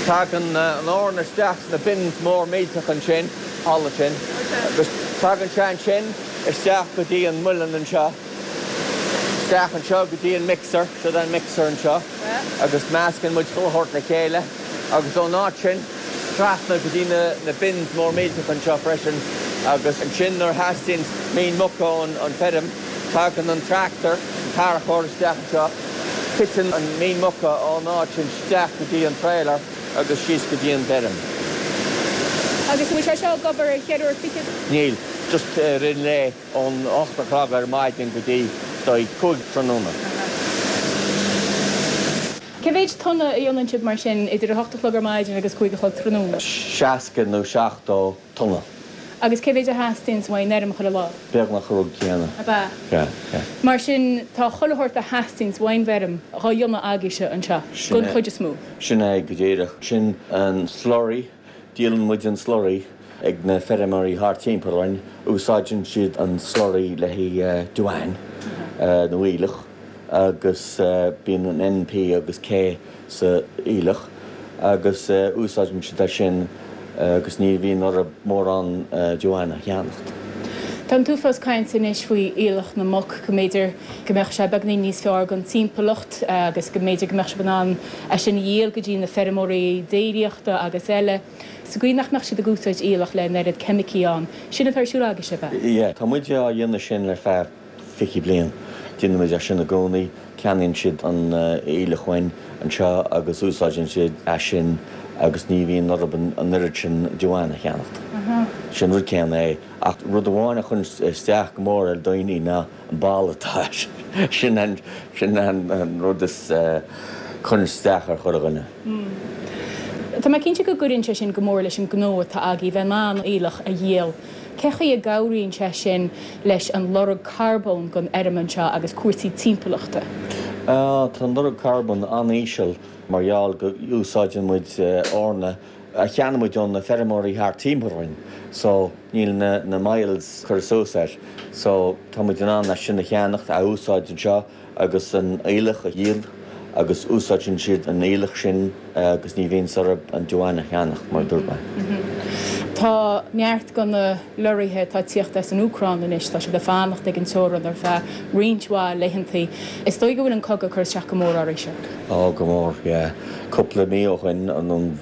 Tagann an eorna isteach sna bins mór millteach ansin, thall ansin, agus tagann sé ansin isteach go dtí an muileann anseo, isteach anseo go dtí an mixer, seo an mixer anseo, agus meascann muid chuile shórt le chéile agus ón áit sin trasna go dtí na bins mór millteach anseo freisin agus ansin nuair a theastaíonn mín muca ón feirm, Tagann an tractor, an tarracóir isteach anseo, titeann an mín muca ón áit sin isteach go dtí an trailer agus síos go dtí an bhfeirm. Agus an bhfuil sé seo ag obair ar cheithre uair fichead? Níl, just i rith an lae ón 8 a chlog ar maidin go dtí 5 tráthnóna. Cé mhéid tonna a dhéanann sibh mar sin idir a hocht a chlog ar maidin agus cúig a chlog tráthnóna? 60 nó 70 tonna. Agus cé mhéid a theastaíonns uaidh an fheirm chuile lá? Beagnach an rud céanna. Ab ea? Sea, sea. Mar sin, tá chuile shórt a theastaíonns uaidh an bhfeirm dhá dhéanamh agaibhse anseo, don chuid is mó. Sin é go díreach. Sin an slurry, díolann muid an slurry ag na feirmeoirí thart timpeall orainn. Úsáideann siad an slurry le haghaidh damhán nó aoileach. agus bíonn an N, P agus K sa aoileach agus úsáideann siad é sin agus ní bhíonn orthu mórán damhán a cheannacht. Tá an t-uafás cainte anois faoi aoileach na muc, go mb'fhéidir go mbeadh sé beagainín níos fearr don timpeallacht agus go mb'fhéidir go mbeadh sibh in ann é sin a dhíol go dtí na feirmeoirí déiríochta agus eile, sa gcaoi nach mbeadh siad ag úsáid aoileach le an oiread ceimicí ann. Sin atá ar siúl agaibhse, ab ea? Yeah, tá muid á dhéanamh sin le feadh 20 bliain. Déanann muid é sin i gcónaí. Ceannaíonn siad an aoileach uainn anseo agus úsáideann siad é sin agus ní bhíonn orthu an oiread sin damhán a cheannacht. Sin rud céanna é. Ach rud amháin a chuireann isteach go mór ar dhaoine ná an boladh atá air. Sin an, sin an rud is, chuireann isteach ar chuile dhuine. Tá mé cinnte go gcuireann sé sin go mór leis an ngnó atá agaibh, bheith in ann aoileach a dhíol. Cé chaoi a gcabhraíonn sé sin leis an lorg carbóin den fheirm anseo agus cúrsaí timpeallachta? Tá an lorg carbóin an-íseal mar gheall go úsáideann muid eorna a cheannaigh muid ó na feirmeoirí thart timpeall orainn so níl na miles curtha suas air so tá muid in ann é sin a cheannacht, a úsáid anseo. agus an aoileach a dhíol agus úsáideann siad an aoileach sin agus ní bhíonns orthu an damhán a cheannach, mar a dúirt mé. Tá neart de na lorraithe atá ag tíocht as an Úcráin anois, tá siad ag fanacht ag an teorainn ar feadh roinnt mhaith laethantaí. Is dóigh go bhfuil an cogadh ag cur isteach go mór oraibhse? Ó, go mór, yeah. Cúpla mí ó shoin, nó,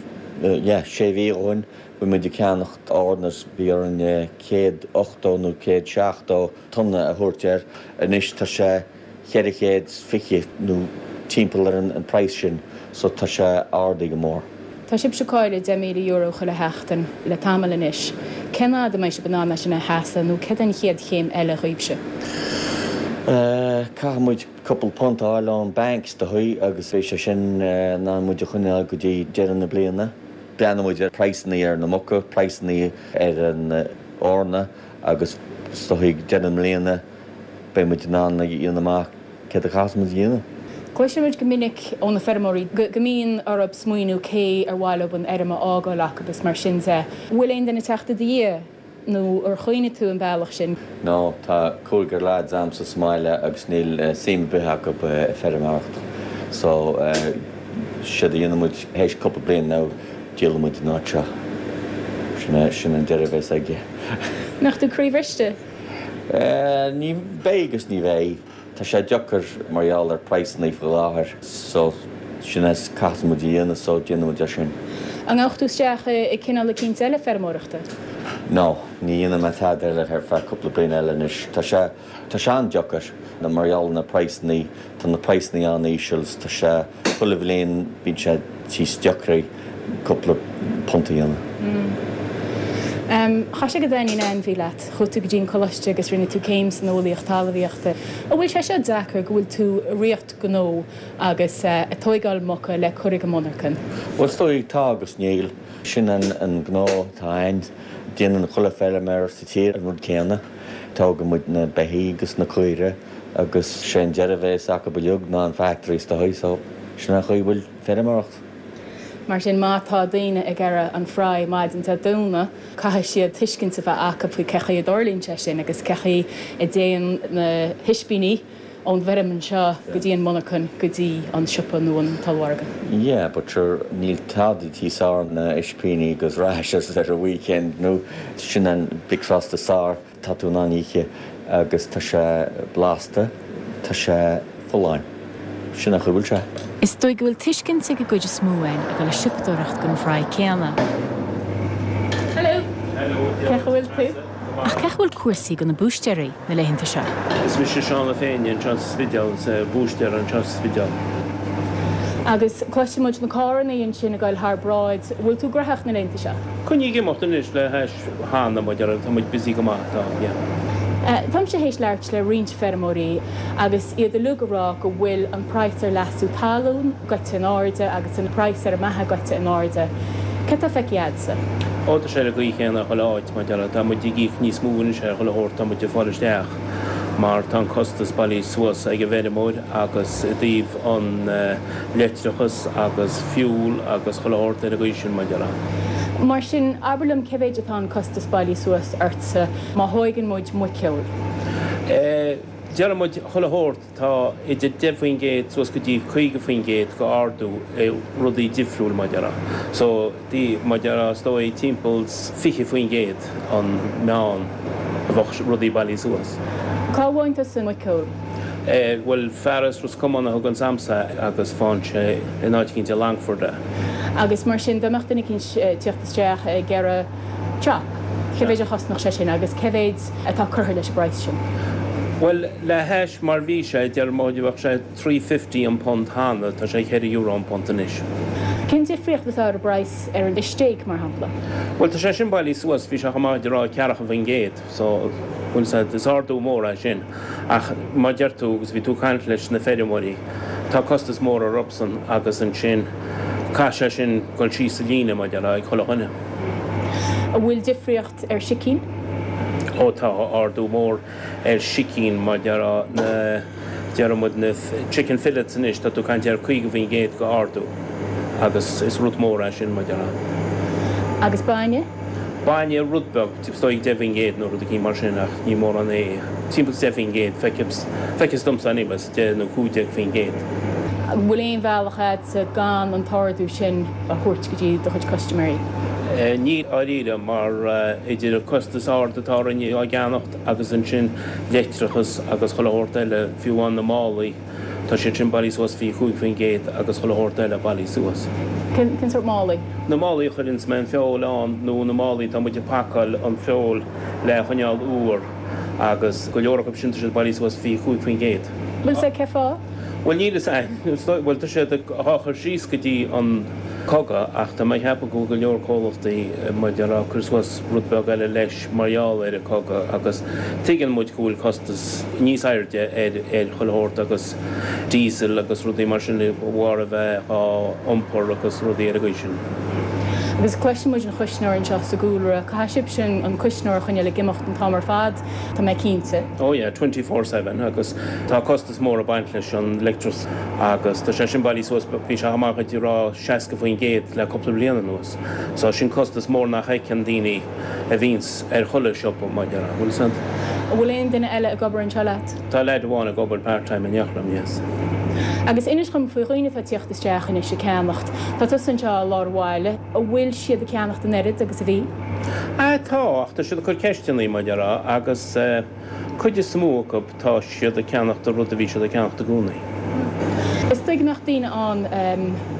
yeah, sé mhí ó shoin, bhí muid ag ceannacht eorna, bhí orainn 180 nó 170 tonna a thabhairt air. Anois tá sé 420 nó timpeall ar an praghas sin so tá sé ardaithe go mór. Tá sibhse ag cailleadh €10,000 chuile sheachtain le tamall anois. Cén fhad a mbeidh sibh in ann é sin a sheasamh nó céard an chéad chéim eile dhaoibhse? Caithfidh muid cúpla punt a fháil ón bank is dóigh agus beidh sé sin in ann muid a choinneáil go dtí deireadh na bliana. Breathnóidh muid ar praghsanna ar na muca, praghsanna ar an eorna Agus is dóigh ag deireadh na bliana beidh muid in ann a dhéanamh amach céard a chaithfeas muid a dhéanamh. Cloiseann muid go minic ó na feirmeoirí go mbíonn orthu smaoineamh cé ar mhaith leo an fheirm a fhágáil acu is mar sin de. Bhfuil aon duine ag teacht i do dhiaidh nó ar chuimhnigh tú an bealach sin? No, tá cúigear lads a'msa sa mbaile agus níl suim ar bith acu i feirmeoireacht. So, séard a dhéanfaidh muid théis cúpla bliain now, díolfaidh muid an áit seo. Sin é, sin an deireadh a bheas aige. Mbeadh tú croíbhriste? Ní bheidh agus ní bheidh. Tá sé deacair mar gheall ar praghsanna faoi láthair so sin é caithfidh muid a dhéanamh so déanfaidh muid é sin. An ngabhfadh tú isteach i cineál eicínt eile feirmeoireachta? No, ní dhéanfaidh mé tada eile ar feadh cúpla bliain eile anois. Tá sé, tá sé an-deacair mar gheall ar na praghsannaí, tá na praghsannaí an-íseal is tá sé, chuile bhliain bíonn sé níos deacraí cúpla punt a dhéanamh. Chaith sé go dtaitníonn ainmhí leat. Chuaigh tú go dtí an coláiste agus rinne tú céim san eolaíocht talmhaíochta. An bhfuil sé seo deacair go bhfuil tú i riocht gnó agus ag tóigeáil muca le cur ag an monarcan? Bhuel is dóigh tá agus níl. Sin an gnó atá a'ainn. Déanann chuile feilméar sa tír an rud céanna. Tógann muid na beithígh agus na caoire agus sé an deireadh a bhéas acu uilig ná an factory is dóigh so sin an chaoi a bhfuil feirmeoireacht. Mar sin má tá daoine ag iarraidh an fry maidin Dé Domhnaigh caithfidh siad tuiscint a bheith acu faoi cé chaoi a dtarlaíonn sé sin agus cé chaoi a dtéann na hispíní ón bhfeirm anseo go dtí an monarchan go dtí an siopa nó an t-ollmhargadh. Yeah but sure níl tada níos fearr ná ispíní agus rashers ar an weekend nó sin an bricfeasta is fearr atá tú in ann ithe agus tá sé blasta, tá sé folláin. Sin an chaoi a bhfuil sé. Is dóigh go bhfuil tuiscint ag an gcuid is mó againn ag dul ag siopadóireacht don fry céanna. Hello! Cén chaoi a bhfuil tú? Ach cén chaoi a bhfuil cúrsaí do na búistéirí na laethanta seo? Is mise Seán Ó Féinne anseo sa Spidéal, is búistéir anseo sa Spidéal. Agus cloiseann muid na carrannaí ansin ag dul thar bráid. Bhfuil tú graitheach na laethanta seo? Coinnigh ag imeacht anois le hais cheana, mar a déarfá, tá muid busy go maith, tá, yeah. Táimse théis labhairt le roinnt feirmeoirí agus iad uilig ag rá go bhfuil an praghas ar leasú talún goite in airde agus an praghas ar an mbeatha goite in airde. Céard atá feicthe a'dsa? Ó, tá sé ar an gcaoi chéanna chuile áit, mar a déarfá. Tá muid ag íoc níos mó anois ar chuile shórt tá muid ag fáil isteach mar tá an costas bailithe suas ag an bhfeirmeoir agus i dtaobh an leictreachas agus fuel agus chuile shórt ar an gcaoi sin, mar a déarfá. Mar sin, abair liom cé mhéid atá an costas bailithe suas ortsa má thóigeann muid muiceoil? Eh, déarfaidh muid chuile shórt. Tá idir 10% suas go dtí 50% go ardú i rudaí difriúil mar a déarfá. So, mar a déarfá, is dóigh timpeall 20% an meán a bheadh rudaí bailithe suas. Cá bhfaigheann tusa an muiceoil? Eh, bhuel, fear as Ros Comáin a thuganns a'msa agus faigheann sé in áit eicínt i Longford é. Agus mar sin, dá mbeadh duine eicínt ag tíocht isteach ag iarraidh chop, cé mhéid a chosnódh sé sin agus cé mhéid atá curtha leis an bpraghas sin? Bhuel, le hais mar bhí sé, deir muid, bheadh sé 3.50 an punt cheana, tá sé 4 euro an punt anois. Cén difríocht atá ar an bpraghas ar an stéig, mar shampla? Bhuel, tá sé sin bailithe suas, bhí sé chomh maith a rá ceathracha faoin gcéad, so, bhuel, is ardú mór é sin. Ach mar deir tú, agus bhí tú ag caint leis na feirmeoirí, tá costas mór orthusan agus ansin caithfidh sé sin dul síos sa líne, mar a déarfá, ag chuile dhuine. An bhfuil difríocht ar sicín? Ó tá ardú mór ar sicín, mar a déarfá, na, déarfaidh muid na chicken fillets anois, tá tú ag caint ar 50% go ardú agus is rud mór é sin, mar a déarfá. Agus bainne? Bainne, rud beag, is dóigh 10% nó rud eicínt mar sin ach ní mórán é, timpeall 10%, feictear domsa anyway, 10 nó 15%. An bhfuil aon bhealach a'dsa gan an t-ardú sin a thabhairt go dtí do chuid custaiméirí? Níl dáiríre mar idir an costas ard atá orainn á gceannacht agus ansin leictreachas agus chuile shórt eile, fiú amháin na málaí, Tá siad sin bailithe suas 25% agus chuile shórt eile bailithe suas. Cén sórt málaí? Na málaí a chuireanns mé an feoil ann nó na málaí atá muid ag pacáil an feoil le choinneáil úr agus go leor acu sin tá siad bailithe suas 25%. Bhfuil 'fhios a'd cé fáth? Bhuel níl 'fhios a'm, bhuel tá siad á chur síos go dtí an cogadh ach tá mé ag ceapadh go bhfuil go leor comhlachtaí mar a déarfá ag cur suas rud beag eile leis. mar gheall ar an cogadh agus tuigeann muid go bhfuil costas níos airde ar ar chuile shórt agus diesel agus rudaí mar sin de bharr a bheith á iompar agus rudaí ar an gcaoi sin. Agus cloiseann muid an chuisneoir anseo sa gcúlra. Caithfidh sibhse an cuisneoir a choinneáil ag imeacht an t-am ar fad, tá mé cinnte. Oh yeah, 24/7 agus tá costas mór ag baint leis an leictreachas agus tá sé sin bailithe suas, bhí sé chomh maith a rá 60% le cúpla bliain anuas. So sin costas mór nach fheiceann daoine. a bhíonns ar chuile siopa, mar a déarfá, bhfuil 'fhios a'd. An bhfuil aon duine eile ag obair anseo leat? Tá leaid amháin ag obair part time in éineacht liom, yes. Agus inis dhom faoi dhaoine atá ag tíocht isteach anois ag ceannacht. Tá tusa anseo i lár an bhaile. An bhfuil siad ag ceannacht an oiread agus a bhí? Ah tá, ach tá siad ag cur ceisteannaí, mar a déarfá, agus eh cuid is mó acu tá siad ag ceannacht an rud a bhí siad ag ceannacht i gcónaí. Is dóigh go mbeadh daoine ann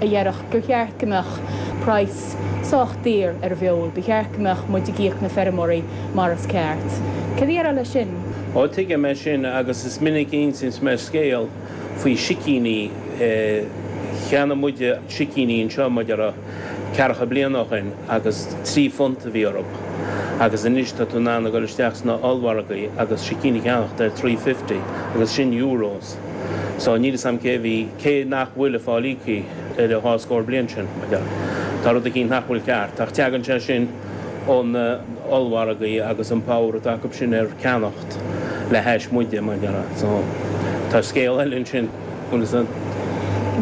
a dhéarfadh gur cheart go mbeadh praghas. sách daor ar an bhfeoil, ba cheart go mbeadh muid ag íoc na feirmeoirí mar is ceart. Céard a déarfá leis sin? Ó, tuigim é sin agus is minic a insíonns mé scéal faoi sicíní. Cheannaigh muide sicíní anseo, mar a déarfá, ceathracha bliain ó shin agus £3 a bhí orthu agus anois tá tú in ann a dhul isteach sna ollmhargaí agus sicín a cheannacht ar 3.50 agus sin euros. So níl 'fhios a'm cé a bhí, cé nach bhfuil ag fáil íoctha ar an dhá scór bliain sin, mar a déarfá. Tá rud eicínt nach bhfuil ceart ach teagann sé sin ó na ollmhargaí agus an power atá acu sin ar ceannacht le hais muide, mar a déarfá. So tá scéal eile ansin. Bhfuil fhios a'd.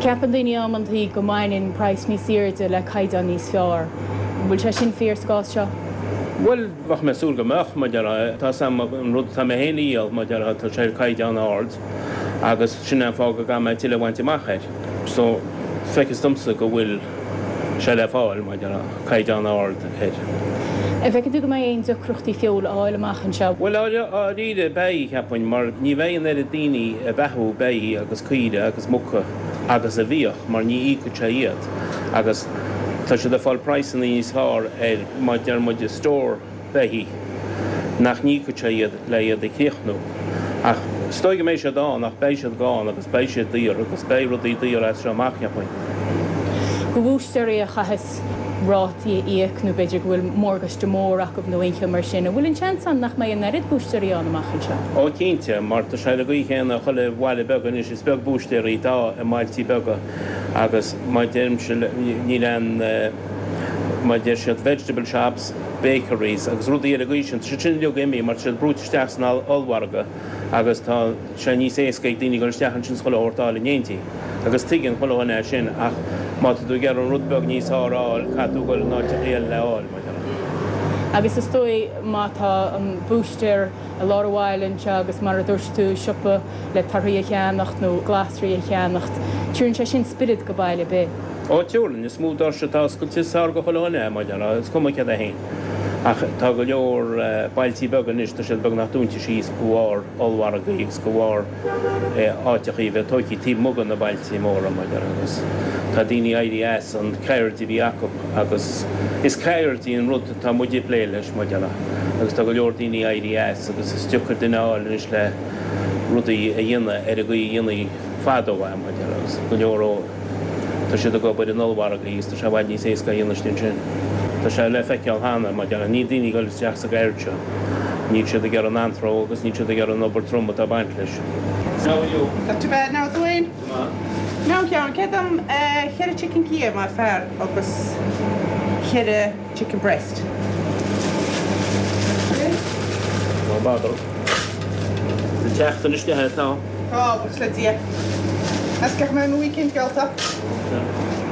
Ceapann daoine amantaí go mbaineann praghas níos airde le caighdeán níos fearr. An bhfuil sé sin fíor sa gcás seo? Bhuel, bheadh mé ag súil go mbeadh, mar a déarfá. Tá 'fhios a'm an rud atá mé féin a dhíol, mar a déarfá, tá sé ar caighdeán ard agus sin é an fáth go gcaithfidh mé tuilleadh a bhaint amach air. So, feictear domsa go bhfuil sé le fáil, mar a déarfá, caighdeán ard air. An bhfeiceann tú go mbeidh aon deacrachtaí feoil a fháil amach anseo? Bhuel, dháiríre, beidh, cheapfainn, mar ní bheidh an oiread daoine ag beathú beithígh agus caoire agus muca agus a bhíodh, mar ní íocfadh sé iad. Agus tá siad ag fáil praghsanna níos fearr ar, mar deir muid, stór beithígh, nach n-íocfadh sé iad le iad a chríochnú. Ach is dóigh go mbeidh siad ann, ach beidh siad gann agus beidh siad daor agus beidh rudaí daor as seo amach, cheapfainn. Do bhúistéirí a chaitheas rátaí a íoc nó b'fhéidir go bhfuil morgáiste mór acu nó aon cheo mar sin, an bhfuil an seans ann nach mbeidh an oiread búistéirí ann amach anseo? Ó cinnte, mar tá sé ar an gcaoi chéanna i chuile bhaile beag anois, is beag búistéirí atá i mbailtí beaga agus mar deirimse níl aon, mar deir siad vegetable shops, bakeries agus rudaí ar an gcaoi sin, tá siad sin uilig imithe mar tá siad brúite isteach san ollmhargadh agus tá sé níos éasca ag daoine dul isteach ansin is chuile shórt a fháil in éindí. Agus tuigeann chuile dhuine é sin ach má tá tú ag iarraidh an rud beag níos fearr a fháil, caithfidh tú dul in áiteachaí eile le fháil, mar déarfá. Agus is dóigh má tá an búistéir i lár an bhaile anseo agus mar a dúirt tú, siopa le torthaí a cheannacht nó glasraí a cheannacht, tabharann sé sin spiorad go baile ar bith. Ó, tabharann, is mó doirse atá oscailte is fearr go chuile dhuine é, mar déarfá, is cuma céard é féin. Ach tá go leor bailtí beaga anois, tá siad beagnach dúnta síos de bharr ollmhargaí agus de bharr áiteachaí a bheith tóigthe taobh amuigh de na bailtí móra, mar déarfá, agus tá daoine éirithe as an ceird a bhí acu agus is ceird í an rud atá muid ag plé leis, mar déarfá, agus tá go leor daoine éirithe as agus is deacair duine a fháil anois le rudaí a dhéanamh ar an gcaoi a dhéanaí fadó é, mar déarfá, agus go leor ó. Tá siad ag obair in ollmhargaí agus tá sé i bhfad níos éasca a dhéanamh istigh ansin. Tá sé le feiceáil cheana, mar déarfá, níl daoine ag dul isteach sa gceird seo. Níl siad ag iarraidh an anró agus níl siad ag iarraidh an obair trom atá ag baint leis. How are you? Not too bad now, Dwayne. Go maith. Now, Sheáin, céard am cheithre chicken Kiev mar fear agus cheithre chicken breast? No bother. An tseachtain isteach atá. Tá, buíochas le Dia. Is gach mbeidh mo weekend geallta.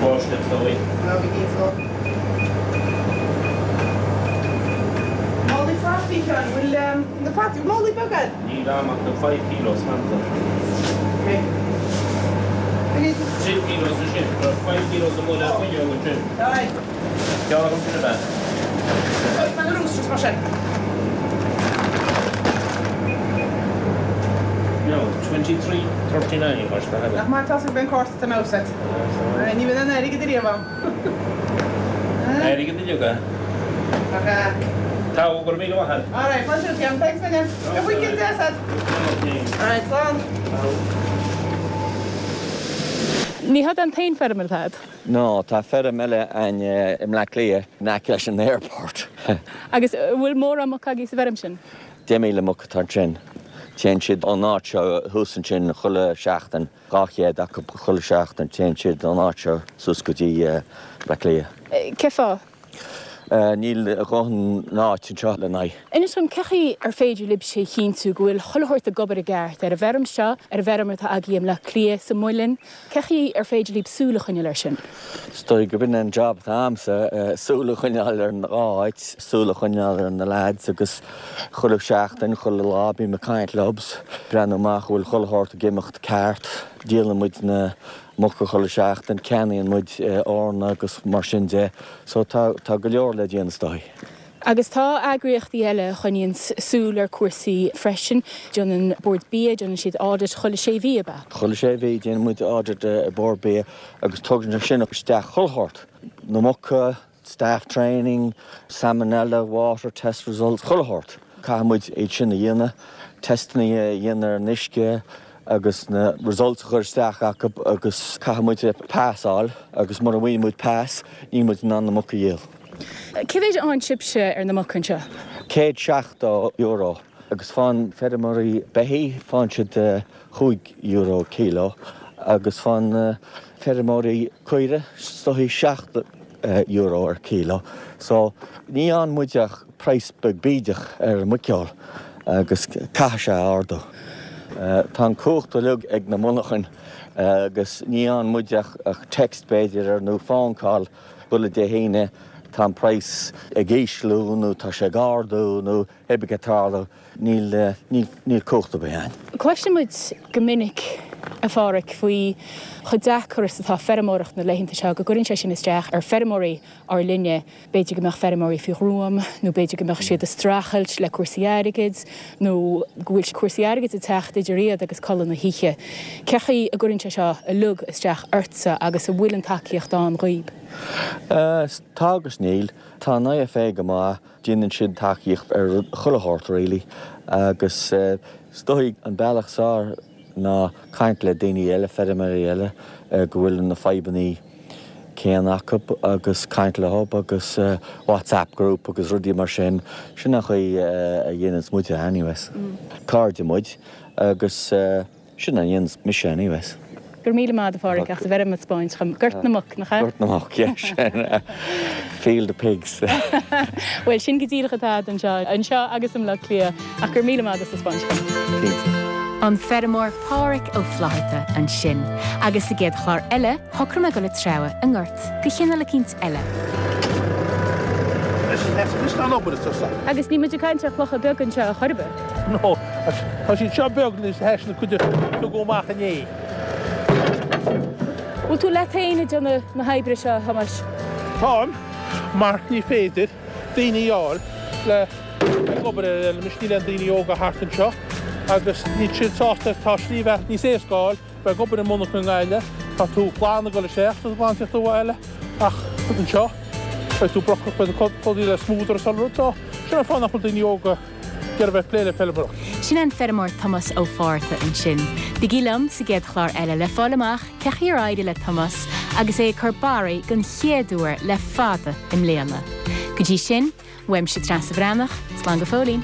Báisteach is dóigh. Ná bí cinnte. Málaí fataí, Sheáin, bhfuil na fataí, málaí beaga agat? Níl a'm ach na five kilos fanta. Ok. Three kilos ansin, tá five kilos amuigh le fuinneog ansin. Aye. Ceann agam sin ab ea? Tá na roosters mar sin. No, 23, 39 mar sin. Nach maith atá an cárta san agat. Ní bheidh an airgead ariamh ann. Airgead uilig é. Ach ea. Tá, go raibh míle maith agat. Alright, fáilte romhat, Thanks a million. Go weekend deas agat. Alright, slán. Ní hé an t-aon feirm atá agat. No, tá feirm eile a'inn i mBleá Cliath, in aice leis an airport. Agus an bhfuil mórán muc agaibh sa bhfeirm sin? 10,000 muc atá ansin. Téann siad ón áit seo thuas ansin chuile sheachtain, 200 acu chuile sheachtain, téann siad ón áit seo suas go dtí Bleá Cliath. Cén fáth? Níl a dhóthain áit anseo lena n-aghaidh. Inis dom, cén chaoi ar féidir libhse a chinntiú go bhfuil chuile shórt ag obair i gceart ar an bhfeirm seo, ar an bhfeirm atá agaibh i mBleá Cliath, sa muileann? Cén chaoi ar féidir libh súil a choinneáil air sin? Is dóigh gurb in an job atá a'msa, súil a choinneáil ar an dhá áit, súil a choinneáil ar na lads agus chuile sheachtain, chuile lá bím ag caint leob, breathnú amach an bhfuil chuile shórt ag imeacht ceart. Díolann muid na muca chuile sheachtain, ceannaíonn muid eorna agus mar sin de. So tá, tá go leor le déanamh is dóigh. Agus tá eagraíochtaí eile a choinníonn súil ar cúrsaí freisin. Déanann Bord Bia, déanann siad audit chuile sé mhí, ab ea? Chuile sé mhí déanann muid audit i Bord Bia agus tugann sé sin isteach chuile shórt, na muca. Staff training, salmonella, water test results, chuile shórt. Caithfidh muid iad sin a dhéanamh, teisteanna a dhéanamh ar an uisce agus na results a chur isteach acu agus caithfidh muid pass a fháil agus mura bhfaigheann muid pass níl muid in ann na muca a dhíol. Cé mhéid a fhaigheann sibhse ar na muca anseo? €170 agus faigheann feirmeoirí beithígh, faigheann siad €5 kilo agus faigheann feirmeoirí caoire is dóichí €7 ar kilo. So ní fhaigheann muid ach praghas beag bídeach ar an muiceoil agus caithfidh sé ardú. Tá an cumhacht uilig ag na monarchain agus ní fhaigheann muid ach text b'fhéidir ar nó phone call chuile Dé hAoine tá an praghas ag ísliú nó tá sé ag ardú nó hé bith cad tarlú. Níl, níl, níl cumhacht ar bith againn. Cloiseann muid go minic, a Pháraic, faoi chomh deacair is atá feirmeoireacht na laethanta seo, go gcuireann sé sin isteach ar feirmeoirí ár linne. B'fhéidir go mbeadh feirmeoirí faoi ghruaim, nó b'fhéidir go mbeadh siad ag streachailt le cúrsaí airgid, nó go bhfuil cúrsaí airgid ag teacht idir iad agus codladh na hoíche. Cé chaoi a gcuireann sé seo uilig isteach ortsa agus an bhfuil an tacaíocht ann dhaoib? Tá agus níl. Tá an IFA go maith. Déanann siad tacaíocht ar chuile shórt really agus is dóigh an bealach is fearr ná caint le daoine eile, feirmeoirí eile go bhfuil na fadhbannaí céanna acu agus caint leo agus WhatsApp group agus rudaí mar sin. Sin an chaoi a dhéananns muide anyways. Cairde muid agus. Sin a dhéananns mise anyways. Go raibh míle maith a'd a Pháraic as an bhfeirm a 'spáint dhom. Gort na Muc, nach ea? Gort na Muc, yeah, sin. Field of Pigs. Bhuel, sin go díreach atá a'd anseo, anseo agus i mBleá Cliath. Ach go raibh míle maith a'd as a 'spáint dhom. Cinnte. An feirmeoir Páraic Ó Flaithearta ansin. Agus sa gcéad chlár eile, shocraigh mé dul ag treabhadh i ngort de chineál eicínt eile. Agus níl muid ag caint ar chlocha beaga anseo ar chor ar bith. No, tá siad seo beag anois théis na cuid a tugadh amach inné. Bhfuil tú leat féin ag déanamh na hoibre seo, a Thomáis? Táim, mar ní féidir daoine a fháil le ag obair ar an fheilm anois, níl aon daoine óga thart anseo agus níl siad sásta, tá slí bheatha níos éasca a fháil. Bheith ag obair i monarcha i nGaillimh, tá tú glan ag dul isteach, tá tú glan ag tíocht abhaile, ach anseo, beidh tú brocach, beidh tú clúdaithe le smúdar is uile rud, so sin an fáth nach bhfuil daoine óga ag iarraidh bheith ag plé le feilméaracht. Sin an feirmeoir Tomás Ó Fátharta ansin. Bígí liom sa gcéad chlár eile le fáil amach cé chaoi ar éirigh le Tomás agus é ag cur barraí den chéad uair le fada i mbliana. Go dtí sin, uaimse Treasa Bhreathnach, slán go fóillín!